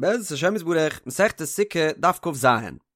בעזרת השם יתברך, מסכת סוכה, דף כ"ז.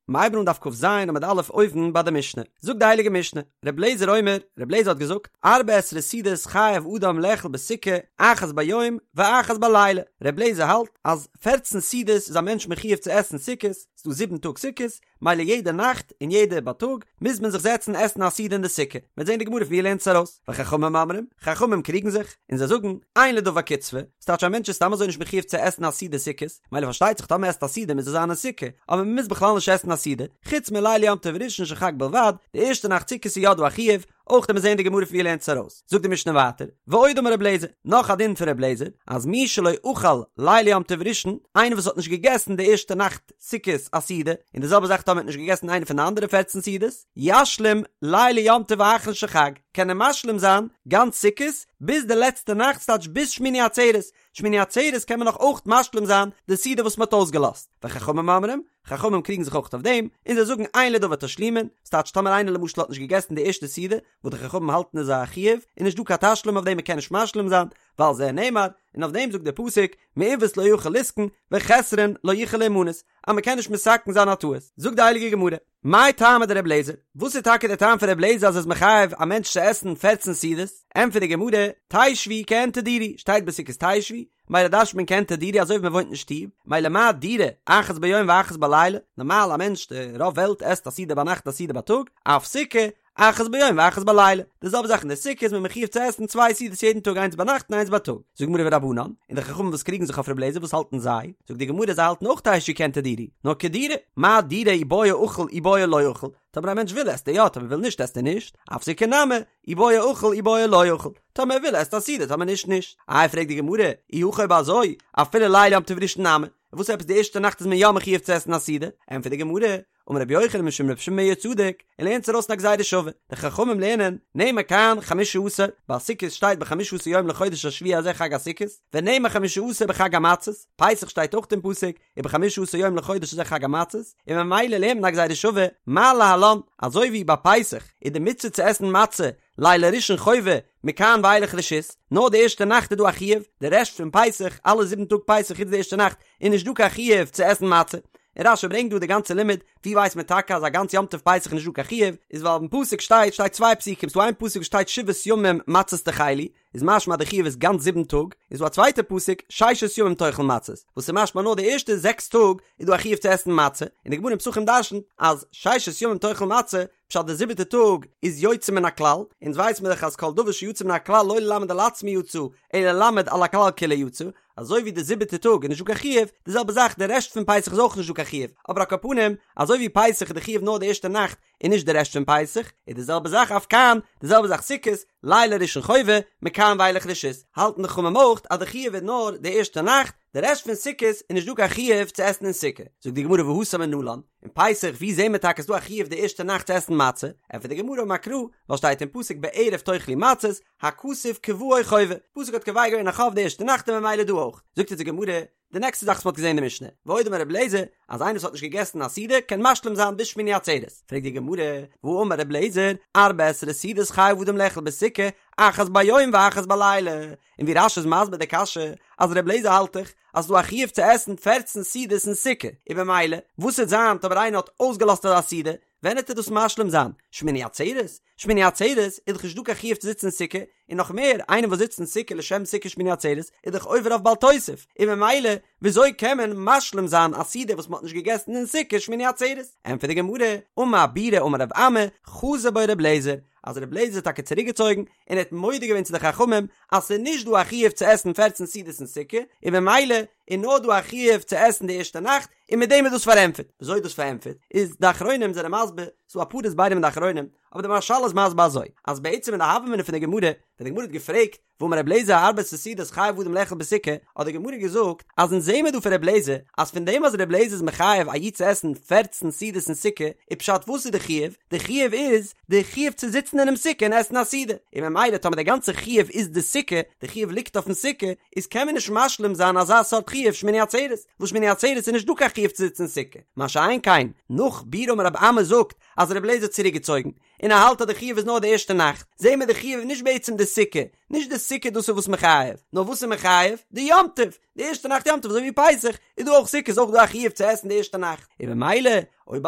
מ'הייבן אן דף כ"ז עמוד א' אויבן ביי די משנה. זאגט די הייליגע משנה, ר' לעזער אומר, ר' לעזער האט געזאגט, ארבע עשרה סעודות חייב אדם לאכול בסוכה, אחת ביום ואחת בלילה. ר' לעזער האלט אז פערצן סעודות איז א מענטש מחיוב צו עסן סוכות, ס'דא זיבן טאג סוכות, מילא יעדע נאכט און יעדע בייטאג מוז מען זיך זעצן עסן א סעודה אין די סוכה, מ'וועט זען די גמרא פון ווי ער לערנט עס ארויס, וחכמים אומרים, חכמים קריגן זיך, און זיי זאגן, אין לדבר קצבה, ס'טייטש א מענטש איז סתם אזוי נישט מחיוב צו עסן א סעודה סוכות, מילא פארשטייט זיך טאמער מ'עסט א סעודה מוז עס זיין אין סוכה, אבער מ'מוז בכלל נישט עסן א סעודה, חוץ מליל יום טוב ראשון של חג בלבד, די ערשטע נאכט סוכות איז יא דא א חיוב, אויך וועט מען זען די גמרא פון ווי ער לערנט עס ארויס, זאגט די משנה ווייטער, ועוד אמר רב לעזער, נאך א דין פון רב לעזער, אז מי שלא אכל ליל יום טוב ראשון, איינער וואס האט נישט געגעסן די ערשטע נאכט סוכות א סעודה, און די זעלבע זאך טאמער האט נישט געגעסן איינע פון די אנדערע פערצן סעודות, ישלים ליל יום טוב האחרון של חג, קען ער משלים זיין גאנץ סוכות ביז די לעצטע נאכט ס'טייטש ביז שמיני עצרת, שמיני עצרת קען מען נאך אויך משלים זיין די סעודה וואס מען האט אויסגעלאזט, וחכמים אומרים, חכמים קריגן זיך אויך אויף דעם, און זיי זאגן אין לדבר תשלומין, ס'טייטש טאמער איינער למשל האט נישט געגעסן די ערשטע סעודה, וואס די חכמים האלטן איז א חיוב, איז נישט דא קיין תשלום אויף דעם מען קען נישט משלים זיין, ועל זה נאמר, און אויף דעם זאגט דער פסוק, מעוות לא יוכל לתקון, וחסרון לא יוכל להימנות, אז מען קען נישט מתקן זיין א טעות. זאגט די הייליגע גמרא, מאי טעמא דר' אליעזר, וואס איז טאקע דער טעם פון ר' אליעזר אז ער איז מחייב א מענטש צו עסן פערצן סעודות? ענטפערט די גמרא, תשבו כעין תדורו, שטייט בסוכות תשבו, מילא דרש'נט מען כעין תדורו אזוי ווי מען וואוינט אין שטוב, מילא מה דירה, אחת ביום ואחת בלילה, נארמאל א מענטש, די רוב וועלט עסט א סעודה ביינאכט א סעודה בייטאג, אף סוכה, אחת ביום ואחת בלילה, די זעלבע זאך אין די סוכה איז מען מחיוב צו עסן צוויי סעודות יעדן טאג איינס ביינאכט און איינס בייטאג, זאגט די גמרא ורבנן, און די חכמים וואס קריגן זיך אויף ר' אליעזר וואס האלטן זיי? זאגט די גמרא זיי האלטן אויך תשבו כעין תדורו, נאר כדירה, מה דירה אי בעי אכיל אי בעי לא אכיל, טאמער א מענטש וויל עסט ער יא טאמער וויל נישט עסט ער נישט, אף סוכה נמי, אי בעי אכיל אי בעי לא אכיל, טאמער ער וויל עסט א סעודה טאמער נישט נישט. איי פרעגט די גמרא, אי הכי אויב אזוי, אפילו ליל יום טוב ראשון נמי, וואס עפעס די ערשטע נאכט איז מען יא מחיוב צו עסן א סעודה? ענטפערט די גמרא, אמר רבי יוחנן משום רבי שמעון בן יהוצדק, ער לערנט עס ארויס אין א גזירה שווה, די חכמים לערנען, נאמר כאן חמשה עשר, ביי סוכות שטייט בחמשה עשר יום לחודש השביעי הזה חג הסוכות, ונאמר חמשה עשר בחג המצות, פסח שטייט אויך אין פסוק, ובחמשה עשר יום לחודש הזה חג המצות, און ממילא לערנט מען א גזירה שווה, מה להלן, אזוי ווי ביי פסח איז די מצוה צו עסן מצה לילה ראשון חובה, מכאן ואילך רשות, נאר די ערשטע נאכט איז דא א חיוב, די רעשט פון פסח, אלע זיבן טאג פסח חוץ די ערשטע נאכט, איז נישט דא קיין חיוב צו עסן מצה. און רש"י ברענגט דא די גאנצע לימוד, ווי ווייסט מען טאקע אז א גאנץ יום טוב פסח איז נישט דא קיין חיוב, איז ווייל אין פסוק שטייט שטייט צוויי פסוקים, ס'דא איין פסוק וואס שטייט שבעת ימים מצות תאכלו, איז משמע אז די חיוב איז גאנץ זיבן טאג, און ס'דא א צווייטע פסוק ששת ימים תאכל מצות, וואס איז משמע נאר די ערשטע זעקס טאג איז דא א חיוב צו עסן מצה, און די גמרא אין פסחים דרשנ'ט אז ששת ימים תאכל מצה, פשט די זיבעטע טאג איז יוצא מן הכלל, אונז ווייס מיר דאך אז כל דבר שיוצא מן הכלל לא ללמד על עצמו יצא, אלא ללמד על הכלל כולו יצא, אזוי ווי די זיבעטע טאג איז נישט דא קיין חיוב, די זעלבע זאך די רעשט פון פסח איז אויך נישט דא קיין חיוב, אבער על כל פנים, אזוי ווי פסח איז די חיוב נאר די ערשטע נאכט און נישט די רעשט פון פסח, איז די זעלבע זאך אף כאן, די זעלבע זאך סוכות, לילה ראשון חובה, מכאן ואילך רשות, האלטן די חכמים אויך אז די חיוב איז נאר די ערשטע נאכט, די רעשט פון סוכות איז נישט דא קיין חיוב צו עסן אין סוכה, זאגט די גמרא והתם מנלן, אין פסח ווי זעהן מיר טאקע ס'דא א חיוב די ערשטע נאכט צו עסן מצה, ענטפערט די גמרא אמר קרא, ווייל שטייט אין פסוק בערב תאכלו מצות, הכתוב קבעו חובה, פסוק האט קובע געווען א חוב די ערשטע נאכט און ממילא דא אויך, זאגט אונז די גמרא, די נעקסטע זאך וואס מ'האט געזעהן אין די משנה, ועוד אמר רבי אליעזר, אז איינער וואס האט נישט געגעסן א סעודה קען משלים זיין ביז שמיני עצרת, פרעגט די גמרא, והאמר רבי אליעזר, ארבע עשרה סעודות חייב אדם לאכול בסוכה, אחת ביום ואחת בלילה, און ווי רש"י איז מסביר די קשיא, אז רבי אליעזר האלט דאך אז ס'דא א חיוב צו עסן פערצן סעודות אין סוכה, און במילא, וואס וועט זיין טאמער איינער האט אויסגעלאזט אזא סעודה, ווען וועט ער דאס משלים זיין? שמיני עצרת? שמיני עצרת איז דאך נישט דא קיין חיוב צו זיצן אין סוכה, און נאך מער, איינער וואס זיצט אין סוכה לשם סוכה שמיני עצרת איז דאך עובר אויף בל תוסיף, און במילא, וויאזוי קען מען משלים זיין א סעודה וואס מ'האט נישט געגעסן אין סוכה שמיני עצרת? ענטפערט די גמרא, אמר בירא אמר רב אמי, חזר בו ר' אליעזר, אז ר' אליעזר האט טאקע צוריקגעצויגן און ער האט מודה געווען צו די חכמים אז ס'איז נישט דא א חיוב צו עסן פערצן סעודות אין סוכה, און במילא איז נאר דא א חיוב צו עסן די ערשטע נאכט, און מיט דעם איז דאס פארענטפערט. וויאזוי איז דאס פארענטפערט? איז די אחרונים זענען מסביר, ס'דא אפאר הסברים אין די אחרונים, אבער די מהרש"ל איז מסביר אזוי, אז בעצם אין די הוה אמינא פון די גמרא, ווען די גמרא האט געפרעגט, והאמר רבי אליעזר ארבע עשרה סעודות חייב אדם לאכול בסוכה, האט די גמרא געזאגט אז אונז זעהן מיר דא פון רבי אליעזר אז פון דעם אז רבי אליעזר איז מחייב א איד צו עסן פערצן סעודות אין סוכה, איז פשט וואס איז די חיוב? די חיוב איז די חיוב צו זיצן אינעם סוכה און עסן א סעודה, און ממילא טאמער די גאנצע חיוב איז די סוכה, די חיוב ליגט אויפן סוכה, איז קען מען נישט משלים זיין אזא סארט חיוב שמיני עצרת, וואס שמיני עצרת איז נישט דא קיין חיוב צו זיצן אין סוכה, מה שאין כן נאך בירא אמר רב אמי זאגט אז רבי אליעזר האט צוריקגעצויגן, און ער האלט אז די חיוב איז נאר די ערשטע נאכט, זעהן מיר די חיוב איז נישט בעצם די. די סוכה, נישט די סוכה דאס איז וואס מחייב, נאר וואס איז מחייב? די יום טוב, די ערשטע נאכט יום טוב אזוי ווי פסח איז דא אויך סוכות איז אויך דא א חיוב צו עסן די ערשטע נאכט, און במילא אויב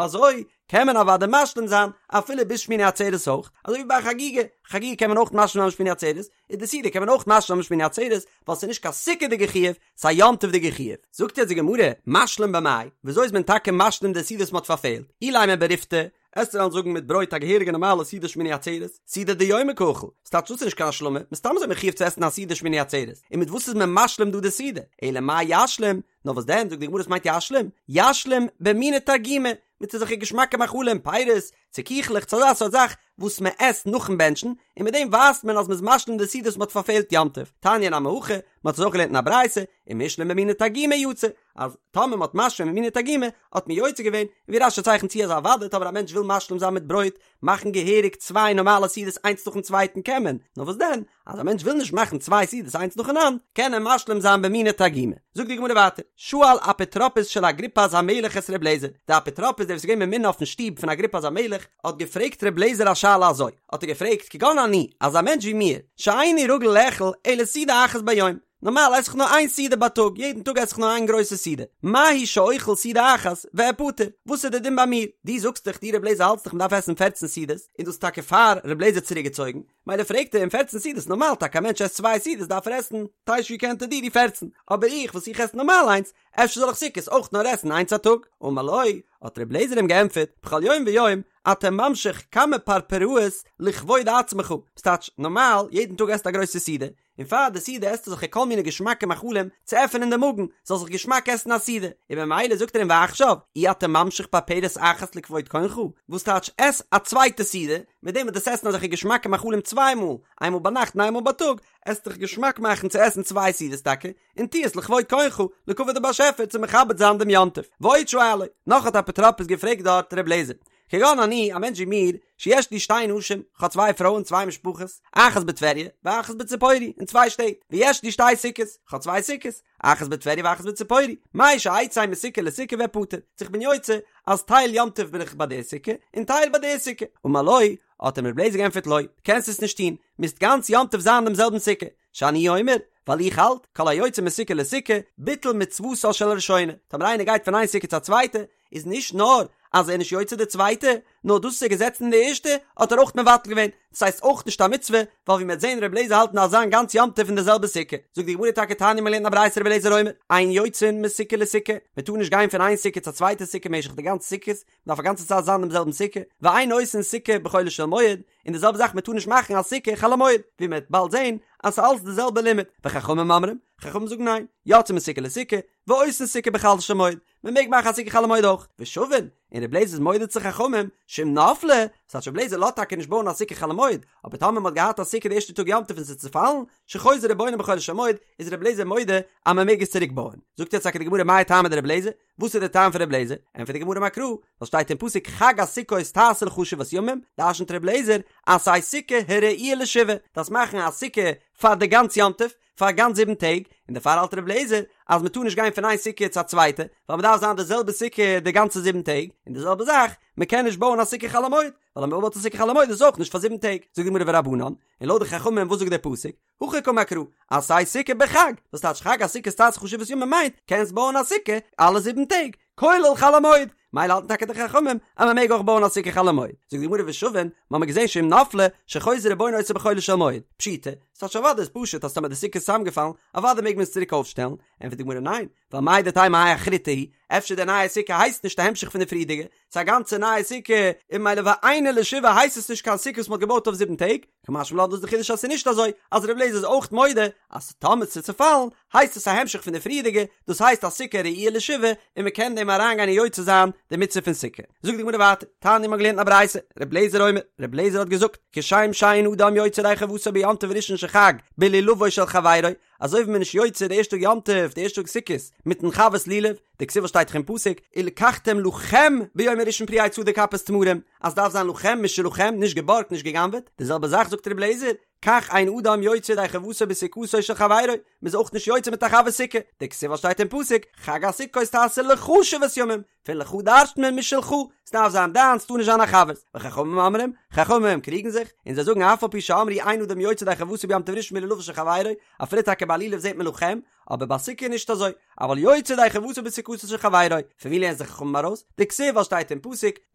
אזוי קען מען אוודאי משלים זיין אפילו ביז שמיני עצרת אויך, אזוי ווי ביי א חגיגה, חגיגה קען מען אויך משלים זיין שמיני עצרת, איז די סעודה קען מען אויך משלים זיין שמיני עצרת, ווייל ס'איז נישט קיין סוכה'דיגע חיוב, ס'איז א יום טוב'דיגע חיוב. זאגט יעצט די גמרא, משלים במאי, וויאזוי איז מען טאקע משלים די סעודה וואס מ'האט פארפעלט? אילימא בריפתא, עסטו וועלן זאגן מיט ברויט א געהעריגע נארמאלע סעודה שמיני עצרת, סעודה דיומא קאכיל, ס'טייטש דאס איז נישט קיין השלמה, מסתם איז מען מחויב צו עסן א סעודה שמיני עצרת, און מיט וואס איז מען משלים דא די סעודה? אלא מאי ישלים, נאר וואס דען, זאגט די גמרא וואס מיינט ישלים? ישלים במיני תרגימא, מיט אזעלכע געשמאקע מאכלים, פירות, צו קיכלעך, צו אזא סארט זאך וואס מען עסט נאכן בענטשן, און מיט דעם ווייזט מען אז מען איז משלים די סעודה וואס מען האט פארפעלט יום טוב. תניא נמי הכי, מען האט עס אויך געלערנט אין א ברייתא, אם השלים במיני תרגימא יצא, אז טאמער מען האט משלים במיני תרגימא, האט מען יוצא געווען, און ווי רש"י צייכנט צו אז אוודאי טאמער א מענטש וויל משלים זיין מיט ברויט, מאכן געהעריג צוויי נארמאלע סעודות איינס נאכן צווייטן קען מען, נאר וואס דען, אז א מענטש וויל נישט מאכן צוויי סעודות איינס נאכאנאנד, קען ער משלים זיין במיני תרגימא. זאגט די גמרא ווייטער, שאל אפוטרופוס של אגריפס המלך את ר' לעזער, די אפוטרופוס דער וואס איז געווען ממונה אויפן שטוב פון אגריפס המלך, האט געפרעגט ר' לעזער א שאלה אזוי, האט ער געפרעגט, כגון אני, אזא מענטש ווי מיר, שאיני רגיל לאכול אלא סעודה אחת ביום, נארמאל עס איך נאר איין סעודה ביי טאג, יעדן טאג עס איך נאר איין גרויסע סעודה, מהו שאוכל סעודה אחת ואפטר, וואס איז די דין ביי מיר? דו זאגסט דאך, דו ר' לעזער האלטסט דאך מ'דארף עסן פערצן סעודות, און דאס איז טאקע פאר ר' לעזער צוריקגעצויגן, מילא פרעגט ער אים פערצן סעודות נארמאל טאקע א מענטש עסט צוויי סעודות דארף ער עסן תשע יקנטר דידי פערצן, אבער איך וואס איך עס נארמאל איינס, אפשר זאל איך סוכות אויך נאר עסן איינס א טאג? אמר לו, האט ר' לעזער אים געענטפערט, בכל יום ויום אתה ממשיך כמה פרפראות לכבוד עצמך, ס'טייטש נארמאל יעדן טאג עסט א גרויסע סעודה, און פאר די סעודה עסטו זיך כל מיני געשמאקע מאכלים צו עפענען די מאגן, זאל זיך געשמאק עסן א סעודה, און ממילא זאגט ער אים ועכשיו, אי אתה ממשיך פרפרת אחת לכבוד קונך, וואס טייטש עס א צווייטע סעודה, מיט דעם וואס דו'סט עסן אזעלכע געשמאקע מאכלים צוויי מאל, איינמאל ביינאכט און איינמאל בייטאג, עסט דיך געשמאק מאכן צו עסן צוויי סעודות טאקע, און טו עס לכבוד קונך, לכבוד די באשעפער צו מכבד זיין דעם יום טוב. ועוד שאלו, נאך האט אפוטרופוס געפרעגט דארט ר' לעזער, כגון אני, א מענטש ווי מיר, שיש לי שתי נשים, כ'האב צוויי פרויען, צוויי משפחות, אחת בטבריה, ואחת בציפורי, אין צוויי שטעט, ויש לי שתי סוכות, כ'האב צוויי סוכות, אחת בטבריה ואחת בציפורי, מהו שאצא מסוכה לסוכה ואפטר, צו כ'בין יוצא, אז טייל יום טוב בין איך ביי די סוכה, און טייל ביי די סוכה. אמר לו, האט אים ר' לעזער געענטפערט לא, קענסט עס נישט טון, מוזט גאנץ יום טוב זיין אין דעם זעלבן סוכה, שאני אומר, ווייל איך האלט, כל היוצא מסוכה לסוכה, ביטל מצוותה של הראשונה, טאמער איינער גייט פון איין סוכה צו א צווייטע, איז נישט נאר אז ער איז נישט יוצא די צווייטע, נאר דאס וואס ער איז געזעצן אין די ערשטע, האט ער אויך מבטל געווען, דאס הייסט אויך נישט א מצוה, ווייל ווי מ'וועט זען ר' לעזער האלט מ'דארף זיין גאנץ יום טוב אין די זעלבע סוכה. זאגט די גמרא טאקע תניא מ'לערנט א ברייתא ר' לעזער אומר, אין יוצאין מסוכה לסוכה, מ'טאר נישט גיין פון איין סוכה צו א צווייטע סוכה משך די גאנצע סוכות, מ'דארף א גאנצע צייט זיין אין דעם זעלבן סוכה, ואין עושין סוכה בחולו של מועד, און די זעלבע זאך מ'טאר נישט מאכן א סוכה חול המועד, ווי מ'וועט באלד זען אז ס'איז אלץ די זעלבע לימוד, וחכמים אומרים, חכמים זאגן ניין, יוצאין מסוכה לסוכה, ועושין סוכה בחולו של מועד, מען מעג מאכן א סוכה חול המועד אויך, ושווין, און ר' לעזער איז מודה צו חכמים, שאם נפלה, ס'טייטש ר' לעזער לאזט טאקע נישט בויען א סוכה חול המועד, אבער טאמער מען האט געהאט א סוכה די ערשטע טאג יום טוב און ס'איז צופאלן, שחוזר ובונה בחולו של מועד, איז ר' לעזער מודה אז מען מעג עס צוריק בויען. זאגט יעצט טאקע די גמרא מאי טעמא דר' לעזער, וואס איז די טעם פון ר' לעזער? ענטפערט די גמרא אמר קרא, ווייל שטייט אין פסוק חג הסוכות תעשה לך שבעת ימים, דרשנ'ט ר' לעזער, עשה סוכה הראויה לשבעה, דארפסט מאכן א סוכה פאר די גאנץ יום טוב, פאר גאנץ זיבן טעג, און דערפאר האלט ר' לעזער אז מען טאר נישט גיין פון איין סוכה צו א צווייטע, ווייל מען דארף זיין די זעלבע סוכה די גאנצע זיבן טעג, און די זעלבע זאך, מען קען נישט בויען א סוכה חול המועד, ווייל אז מען בויט א סוכה חול המועד איז עס אויך נישט פאר זיבן טעג, זאגט די גמרא ורבנן, און לויט די חכמים וואס זאגט דער פסוק, הכי קאמר קרא, עשה סוכה בחג, וואס טייטש חג הסוכות תעשה לך שבעת ימים מיינט, קענסט בויען א סוכה אלע זיבן טעג, כולל חול המועד, מילא האלטן טאקע די חכמים אז מען מעג אויך בויען א סוכה חול המועד, זאגט די גמרא ושווין, מ'האמיר געזען שאם נפלה, שחוזר ובונה אותה בחולו של מועד, פשיטא, ס'טייטש אוודאי איז פשוט אז טאמער די סוכה איז צוזאמגעפאלן, אוודאי מעג מען עס צוריק אויפשטעלן, ענטפערט די גמרא ניין, ווייל מהו דתימא האי אחריתי היא, אפשר די נייע סוכה הייסט נישט א המשך פון די פריערדיגע, ס'איז א גאנצע נייע סוכה, און מילא ואינה לשבעה הייסט עס נישט קיין סוכה וואס מ'האט געבויט אויף זיבן טעג, קא משמע לן דאס איז די חידוש אז ס'איז נישט אזוי, אז ר' אליעזר איז אויך מודה אז טאמער ס'איז צופאלן הייסט עס א המשך פון די פריערדיגע, דאס הייסט א סוכה ראויה לשבעה און מ'קען דעם אריינגיין און יוצא זיין די מצוה פון סוכה. זאגט די גמרא ווייטער, תניא מ'האט געלערנט אין א ברייתא, ר' אליעזר אומר, ר' אליעזר האט געזאגט, כשם שאין אדם יוצא ידי חובתו ביום טוב ראשון של חג בלולבו של חברו, אזוי ווי מ'איז נישט יוצא די ערשטע טאג יום טוב, די ערשטע טאג סוכות, מיטן חבר'ס לולב, דכתיב וואס שטייט דאך אין פסוק, ולקחתם לכם ביום הראשון פרי עץ הדר כפות תמרים, אז ס'דארף זיין לכם משלכם, נישט געבארגט נישט גע'גנב'עט, די זעלבע זאך זאגט ר' לעזער, כך אין אדם יוצא ידי חובתו בסוכתו של חברו, מ'איז אויך נישט יוצא מיט א חבר'ס סוכה, דכתיב וואס שטייט אין פסוק, חג הסוכות תעשה לך שבעת ימים, פון לך דרש'ט מען משלך, ס'דארף זיין דיינס, ס'טאר נישט זיין א חבר'ס, וחכמים אומרים, חכמים קריגן זיך, און זיי זאגן אף על פי שאמרו אין אדם יוצא ידי חובתו ביום טוב ראשון בלולבו של חברו, אפילו טאקע ביי לולב זעט מען לכם, אבער ביי סוכה נישט אזוי, אבל יוצא ידי חובתו בסוכתו של חברו, פון ווי לערנען זיך חכמים ארויס? דכתיב וואס שטייט אין פסוק,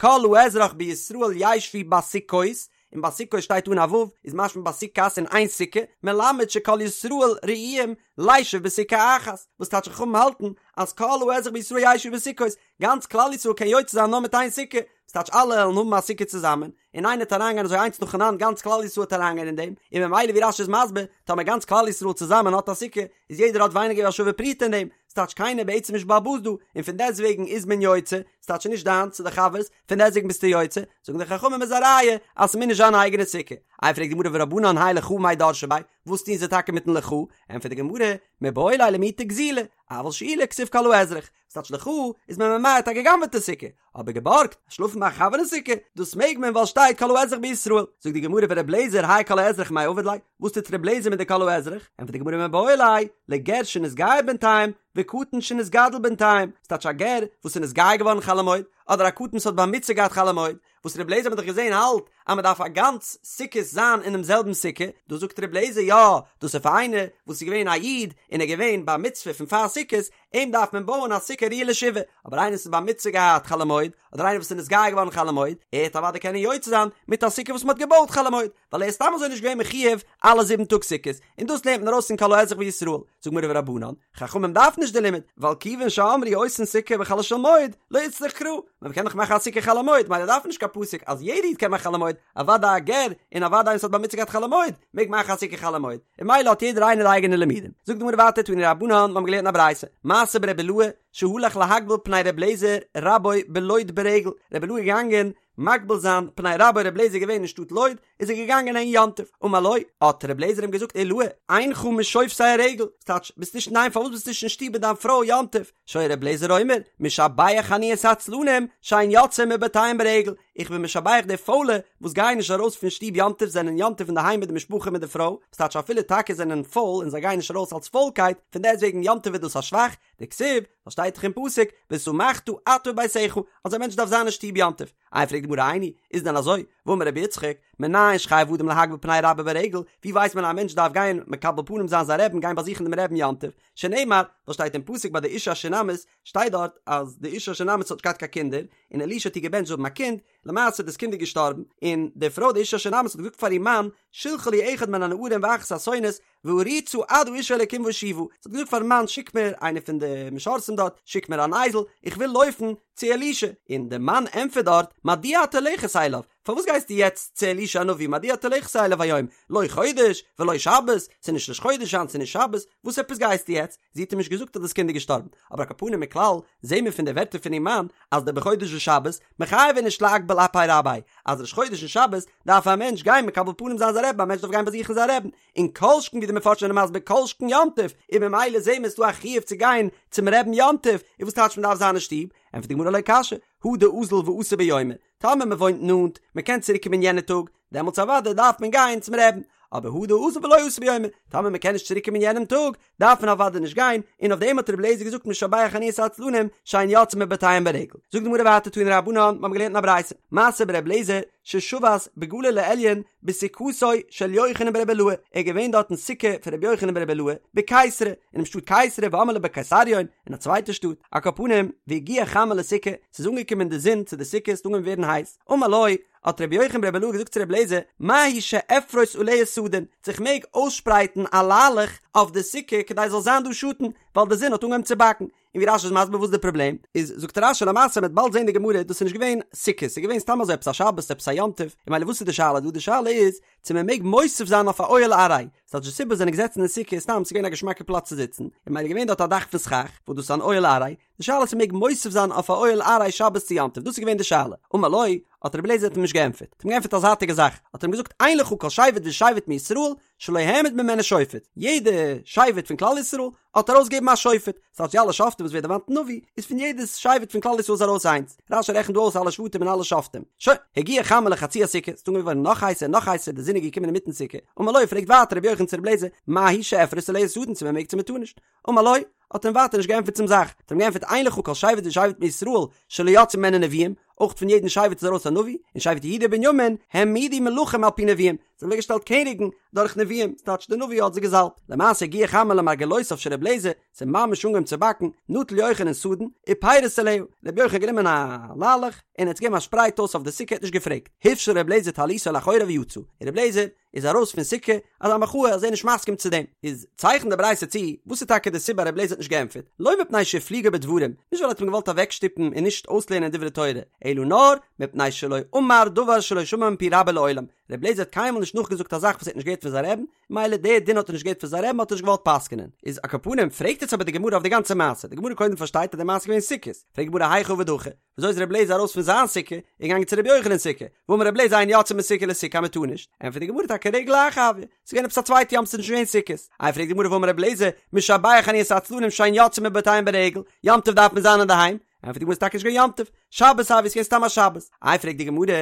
כל האזרח בישראל ישבו בסוכות, און בסוכות שטייט אן א ו', איז משמע בסוכת אין איין סוכה, מלמד שכל ישראל ראויים לישב בסוכה אחת, וואס טייטש חכמים האלטן אז כל האזרח בישראל ישבו בסוכות, גאנץ כלל ישראל קען יוצא זיין נאר מיט איין סוכה, וואס טייטש אלע וועלן האבן א סוכה צוזאמען, און איינער וועט אריינגיין אזוי איינס נאכאנאנד גאנץ כלל ישראל וועט אריינגיין אין דעם, און ממילא ווי רש"י איז מסביר, טאמער גאנץ כלל ישראל צוזאמען האט א סוכה, איז יעדער האט ווייניגער ווי א שווה פרוטה אין דעם, ס'טייטש קיינער בעצם נישט בעל הבית דא, און פון דעסטוועגן איז מען יוצא, ס'טייטש נישט דיינס, ס'איז די חבר'ס, פון דעסטוועגן ביסטו יוצא, זאגן די חכמים איז א ראיה אז ס'מוז נישט זיין א אייגענע סוכה. איי פרעגט די גמרא ורבנן האי לך מאי דרשי ביה, וואס טוהן זיי טאקע מיטן לך? ענטפערט די גמרא, מיבעי ליה למעוטי גזילה, אבל שאולה כתיב כל האזרח, ס'טייטש לך איז מען ממעט א גע'גנב'עטע סוכה, אבער געבארגט, שלאפן ביי א חבר אין סוכה, דאס מעג מען ווייל שטייט כל האזרח בישראל. זאגט די גמרא ור' לעזער האי כל האזרח מאי עביד ליה, וואס טוט ר' לעזער מיט די כל האזרח? ענטפערט די גמרא מיבעי ליה, לגר שנתגייר בינתיים, וקטן שנתגדל בינתיים, ס'טייטש א גר וואס איז נתגייר געווארן חול המועד, אדער א קטן וואס האט בר מצוה געהאט חול המועד, וואס ר' לעזער האט מען דאך געזען האלט אז מען דארף א גאנץ סוכות זיין אינעם זעלבן סוכה, דא זאגט ר' לעזער יא, דאס איז פאר איינער וואס איז געווען א איד און ער געווען בר מצוה פון פאר סוכות, אים דארף מען בויען א סוכה ראויה לשבעה, אבער איינער וואס איז בר מצוה געהאט חול המועד, אדער איינער וואס איז נתגייר געווארן חול המועד, ער וועט אוודאי קענען יוצא זיין מיט א סוכה וואס מען האט געבויט חול המועד, ווייל ער איז סתם אזוי נישט געווען מחיוב אלע זיבן טאג סוכות, און דאס לערנט מען ארויס פון כל האזרח בישראל, זאגט גמרא ורבנן, חכמים דארפן נישט די לימוד, ווייל כיוון שאמרו עושין סוכה בחולו של מועד, לא איצטריך קרא, מען קען דאך מאכן א סוכה חול המועד, ממילא דארף מען נישט קיין פסוק אז יעדע איד קען מאכן חול המועד, אוודאי א גר, און אוודאי איינער וואס האט בר מצוה געהאט חול המועד, מעג מאכן א סוכה חול המועד, און ממילא האט יעדער איינער די אייגענע לימודים. זאגט די גמרא ווייטער תנו רבנן, מיר האבן געלערנט אין א ברייתא, מעשה ברבי אילעאי, שהלך להקביל פני ר' לעזער רבו בלוד ברגל, רבי אילעאי איז געגאנגען מקביל זיין פני רבו ר' לעזער געווען אין שטאט לוד, איז ער געגאנגען אהין יום טוב, אמר לו, האט ר' לעזער אים געזאגט אילעאי, אינך משובתי הרגל, ס'טייטש, ביסט נישט אינדערהיים פארוואס ביסטו נישט אין שטוב מיט דיין פרוי יום טוב, שהיה ר' לעזער אומר, משבח אני את העצלנים, שאין יוצאין מבתיהם ברגל, איך בין משבח די פוילע וואס גייען נישט ארויס פון שטוב יום טוב זענען יום טוב אינדערהיים מיט די משפחה מיט די פרוי, ס'טייטש אפילו טאקע זענען פויל און זיי גייען נישט ארויס אלס פוילקייט, פון דעסטוועגן יום טוב איז דאס א שבח, דכתיב, וואס שטייט דאך אין פסוק, ושמחת אתה וביתך, אז א מענטש דארף זיין אין שטוב יום טוב. איי פרעגט די גמרא איני, איז דען אזוי? והאמר רבי יצחק, מנין שחייב אדם להקביל פני רבו ברגל, ווי ווייסט מען אז א מענטש דארף גיין מקבל פנים זיין זיין רעבין גיין באזוכן דעם רעבין יום טוב, שנאמר, וואס שטייט אין פסוק ביי די אישה השונמית, שטייט דארט אז די אישה השונמית האט נישט געהאט קיין קינדער, און אלישע האט איר געבענטשט זאל האבן א קינד, למעשה דאס קינד איז געשטארבן, און די פרוי די אישה השונמית האט געזאגט פאר איר מאן, שלחה לי אחד מן הנערים ואחת האתונות, וארוצה עד האיש האלקים ואשובה, זי האט געזאגט פארן מאן שיק מיר איינער פון די משרתים דארט, שיק מיר אן אייזל, איך וויל לויפן צו אלישע, און די מאן ענטפערט דארט, מדוע את הולכת אליו, פארוואס גייסטו יעצט צו אלישע הנביא, מדוע את הולכת אליו היום, לא חודש ולא שבת, ס'איז נישט ראש חודש היינט ס'איז נישט שבת, וואס עפעס גייסטו יעצט, זי האט אים נישט געזאגט אז דאס קינד איז געשטארבן, אבער על כל פנים מכלל זעהן מיר פון די ווערטער פון איר מאן אז דבחודש ושבת מיחייב איניש לאקבל אפי רביה, אז ראש חודש און שבת דארף א מענטש גיין מקבל פנים זיין זיין רעבן, א מענטש דארף גיין באזוכן זיין רעבן, און כל שכן ווי די מפרשים זענען מסביר כל שכן יום טוב, און ממילא זעהן מיר ס'דא א חיוב צו גיין צום רעבן יום טוב, און וואס טייטש מ'דארף זיין אין שטוב? ענטפערט די גמרא לא קשיא, הא דאזיל ואתי ביומיה, טאמער מ'וואוינט נאנט, מ'קען צוריק קומען יענע טאג, דעמאלטס אוודאי דארף מען גיין צום רעבן, אבער הא דאזיל ולא אתי ביומיה, טאמער מ'קען נישט צוריק קומען יענעם טאג, דארף מען אוודאי נישט גיין, און אויף דעם האט רבי אליעזר געזאגט משבח אני את העצלנים שאין יוצאין מבתיהם ברגל. זאגט די גמרא ווייטער תנו רבנן, מיר האבן געלערנט אין א ברייתא, מעשה ברבי אליעזר ששבת בגליל העליון בסוכתו של יוחנן ברבי אילעאי, ער איז געווען דארט אין סוכה פון רבי יוחנן ברבי אילעאי בקיסרי, אינעם שטאט קיסרי ואמרי לה בקיסריון, אין א צווייטע שטאט, על כל פנים, והגיעה חמה לסוכה, ס'איז אנגעקומען די זון צו די סוכה, ס'האט אנגעהויבן ווערן הייס, אמר לו, האט רבי יוחנן ברבי אילעאי געזאגט צו רבי אליעזר, מהו שאפרוס עליה סדין, צו איך מעג אויסשפרייטן א ליילעך אויף די סוכה כדי ס'זאל זיין דא שאטן, ווייל די זון האט אנגעהויבן צו באקן. און ווי רשי איז מסביר וואס איז די פראבלעם, איז זאגט רשי למעשה מ'וועט באלד זען די גמרא, דאס איז נישט געווען סוכות, ס'איז געווען סתם אזוי עפעס א שבת, עפעס א יום טוב, און ממילא וואס איז די שאלה דא, די שאלה איז צו מען מעג מוסיף זיין אויף א אוהל עראי, ס'טייטש די סיבה זענען געזעצן אין סוכה איז סתם ס'איז געווען א געשמאקע פלאץ צו זיצן, און ממילא געווען דארט א דאך פון סכך, וואס דאס איז אן אוהל עראי, די שאלה איז צו מ'מעג מוסיף זיין אויף א אוהל עראי שבת צו יום טוב, דאס איז געווען די שאלה, אמר לו, האט רבי אליעזר האט אים נישט געענטפערט, האט אים געענטפערט א זייטיגע זאך, האט ער אים געזאגט אין לך כל שבט ושבט מישראל. שלא העמיד ממנו שופט, יעדע שבט פון כלל ישראל האט ארויסגעגעבן א שופט, ס'טייטש די אלע שופטים וואס ווערט דערמאנט אין נביא, איז פון יעדע שבט פון כלל ישראל איז ארויס איינס, רש"י רעכנט דא אויס אלע שבטים און אלע שופטים. שוין, הגיעה חמה לחצי הסוכה, ס'איז אנגעהויבן ווערן נאך הייסער און נאך הייסער, די זון איז געקומען אינמיטן סוכה, אמר לו, פרעגט ווייטער רבי יוחנן צו רבי אליעזר, מהו שאפרוס עליה סדין צו מען מעג צו מען טאר נישט? אמר לו, האט אים ווייטער נישט געענטפערט צום זאך, האט אים געענטפערט אין לך כל שבט ושבט מישראל שלא יצאו ממנו נביאים, אויך פון יעדן שבט איז ארויס א נביא, און שבט יהודה ובנימין העמידו מלכים על פי נביאים, זיי האבן אוועקגעשטעלט קעניגן דורך נביאים, ס'טייטש די נביא האט זיי געזאלבט, למעשה הגיעה חמה למרגלותיו של רבי אליעזר, ס'איז ממש אנגעהויבן צו באקן, נטל יוחנן סדין, ופירס עליה, רבי יוחנן האט גענומען א ליילעך, און ער האט עס געגעבן א שפרייט אויס אויף די סוכה, ער האט נישט געפרעגט, הפשיל רבי אליעזר טליתו לאחוריו ויצא, און רבי אליעזר איז ארויס פון סוכה, אזא מחאה אז ער איז נישט מסכים צו דעם, איז צייכנט די ברייתא צו, וואס איז טאקע די סיבה רבי אליעזר האט נישט געענטפערט, לא מפני שהפליגו בדברים, נישט ווייל ער האט אים געוואלט אוועקשטופן און נישט אויסלערנען דברי תורה, אלא נאר, מפני שלא אמר דבר שלא שמע מפי רבו לעולם, רבי אליעזר האט קיינמאל נישט נאכגעזאגט א זאך וואס ער האט נישט געהערט פון זיין רעבן, מילא די דין האט ער נישט געהערט פון זיין רעבן האט ער נישט געוואלט פסק'נען. איז על כל פנים פרעגט יעצט אבער די גמרא אויף די גאנצע מעשה, די גמרא קודם פארשטייט אז די מעשה איז געווען סוכות, פרעגט די גמרא היכי עביד הכי, וויאזוי איז רבי אליעזר ארויס פון זיין סוכה און געגאנגען צו רבי יוחנן'ס סוכה, והאמר רבי אליעזר אין יוצאין מסוכה לסוכה אז מ'טאר נישט, ענטפערט די גמרא טאקע רגל אחר הואי, ס'איז געווען עפעס א צווייטע יום ס'איז נישט געווען סוכות, איי פרעגט די גמרא והאמר רבי אליעזר משבח אני את העצלנים שאין יוצאין מבתיהם ברגל, יום טוב דארף מען זיין אינדערהיים, ענטפערט די גמרא ס'איז טאקע נישט געווען יום טוב, שבת הואי, ס'איז געווען סתם א שבת, איי פרעגט די גמרא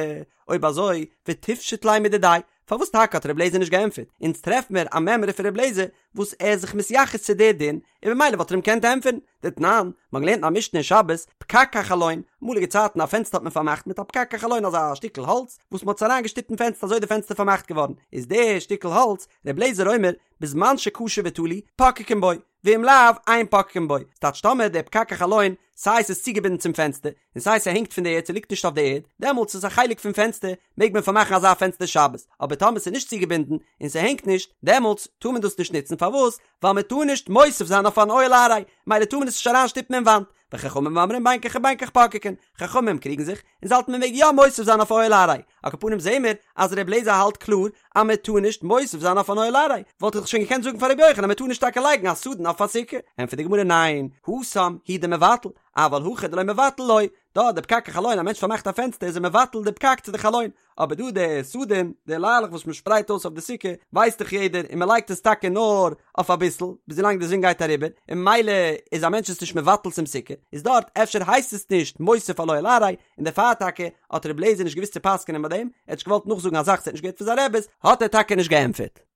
אויב אזוי ותפשוט ליה מדידיה, פארוואס טאקע האט רבי אליעזר נישט געענטפערט? אונז טרעף מיר א מימרא פון רבי אליעזר וואס ער איז זיך מתייחס צו די דין, און ממילא וואלט ער אים געקענט ענטפערן. דתנן, מ'האט געלערנט אין א משנה אין שבת, פקק החלון, אמאליגע צייטן א פענסטער האט מען פארמאכט מיט א פקק החלון אזא שטיקל האלץ וואס מ'האט עס אריינגעשטופט אין פענסטער אזוי איז די פענסטער פארמאכט געווארן, איז די שטיקל האלץ, רבי אליעזר אומר, בזמן שקשור ותלוי, פוקקין בו, ואם לאו, אין פוקקין בו. ס'טייטש טאמער דער פקק החלון, סיי ס'איז צוגעבינדן צום פענסטער, און סיי ס'הענגט פון די ערד ס'ליגט נישט אויף די ערד, דעמאלטס איז עס א חלק פון פענסטער, מעג מען פארמאכן אזא פענסטער שבת, אבער טאמער ס'איז נישט צוגעבינדן, און ס'הענגט נישט, דעמאלטס טאר מען דאס נישט נוצן, פארוואס? ווייל מען טאר נישט מוסיף זיין אויף אן אוהל עראי, מילא טאר מען עס נישט אריינשטופן אין וואנט, וחכמים אומרים בין כך ובין כך פוקקין, חכמים קריגן זיך, און זיי האלטן מען מעג יא מוסיף זיין אויף אוהל עראי, על כל פנים זעהן מיר אז ר' אליעזר האלט קלאר אז מען טאר נישט מוסיף זיין אויף אן אוהל עראי, וואלט איך שוין געקענט זאגן פאר רבי יוחנן אז מען טאר נישט טאקע לייגן א סדין אויף א סוכה, ענטפערט די גמרא ניין, התם הוא דמבטל, אבל הכא דלא מבטל לא, דא די פקק החלון א מענטש פארמאכט א פענסטער איז ער מבטל די פקק צו די חלון, אבער דא די סדין, די ליילעך וואס מען שפרייט אויס אויף די סוכה, ווייסט דאך יעדער, און מען לייגט עס טאקע נאר אויף אביסל, ביז ווילאנג די זון גייט אריבער, און ממילא איז א מענטש עס נישט מבטל צום סוכה, איז דארט אפשר הייסט עס נישט מוסיף על אוהל עראי, און דערפאר טאקע האט רבי אליעזר נישט געוואוסט צו פסק'נען ביי דעם, ער האט נישט געוואלט נאכזאגן א זאך וואס ער האט נישט געהערט פון זיין רעבעס, האט ער טאקע נישט געענטפערט.